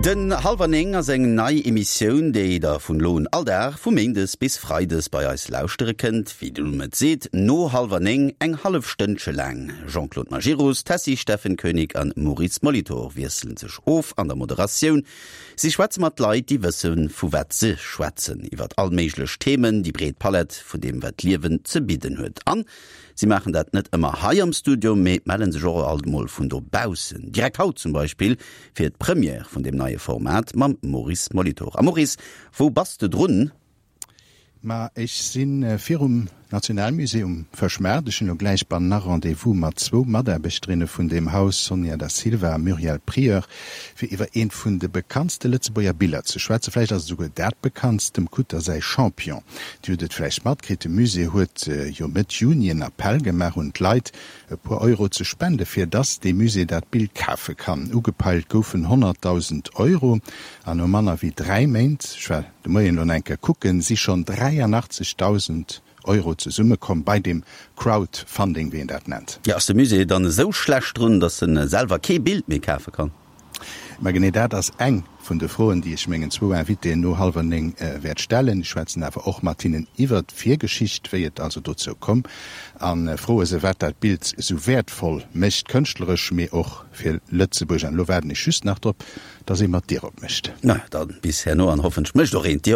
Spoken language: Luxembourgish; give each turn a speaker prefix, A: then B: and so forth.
A: Den Hallwer 9 ass eng nei Emissioun, déi der vun elo un all Dag vu Méindes bis Freides bei eis lauschtere kënnt. Wéi de Numm et seet, no hallwer 9, eng hallef Stënnche laang. Jean-Claude Majerus, Tessy Steffen Koenig an Maurice Molitor wiesselen sech of an der Moderatioun. Si schwätze mat Leit, déi wësse vu wat se schwätzen, iwwert all méiglech Themen, déi breet Palett vun deem wat d'Liewen ze bidden huet. An Si maachen dat net ëmmer hei am Studio, mee melle sech och alt mol vun dobaussen. Direkt haut zum Beispill fir d'Première vun deem neie Format mam Maurice Molitor. A Maurice, wou bass de drun?
B: Ma ech si virum Nationalmusée um Fëschmaart. Ech hunn elo gläich bannena Rendez-vous mat zwou Mataarbechterinne vun deem Haus, Sonia Da Silva a Muriel Prieur, fir iwwer eent vun de bekanntste Lëtzebuerger Biller ze schwätzen. Vläicht ass et esouguer dat bekanntst, dem Kutter säi Champion. Dir hutt et vläicht matkritt, de Musée huet jo Mëtt Juni en Appell gemaach un d'Leit, e puer Euro ze spende fir dass dee Musée dat Bild kafe kann. Ugepeilt goufen 100.000 Euro an no manner wéi 3 Méint, ech war de Moien elo nach eng Kéier kucken, si schonn 83.000 Euro zesummekomm bei deem Crowdfunding, wéi een dat nennt.
A: Jo, ass de Musée dann esou schlecht drun, dass en selwer kee Bild méi kafe kann?
B: Mä genee dat ass eng vun de Froen, déi ech mengen zwou Invitéen no hallwer 9 wäert stellen. Ech schwätzen awer och mat hinnen iwwert d'Virgeschicht, wéi et also dozou komm, a froe se, wat dat Bild esou wäertvoll mécht, kënschtleresch, mee och fir Lëtzebuerg. An elo waarden ech just nach drop, dass ee mer d'Dier opmécht.
A: Na, da bis herno an hoffentlech mécht och een d'Dier.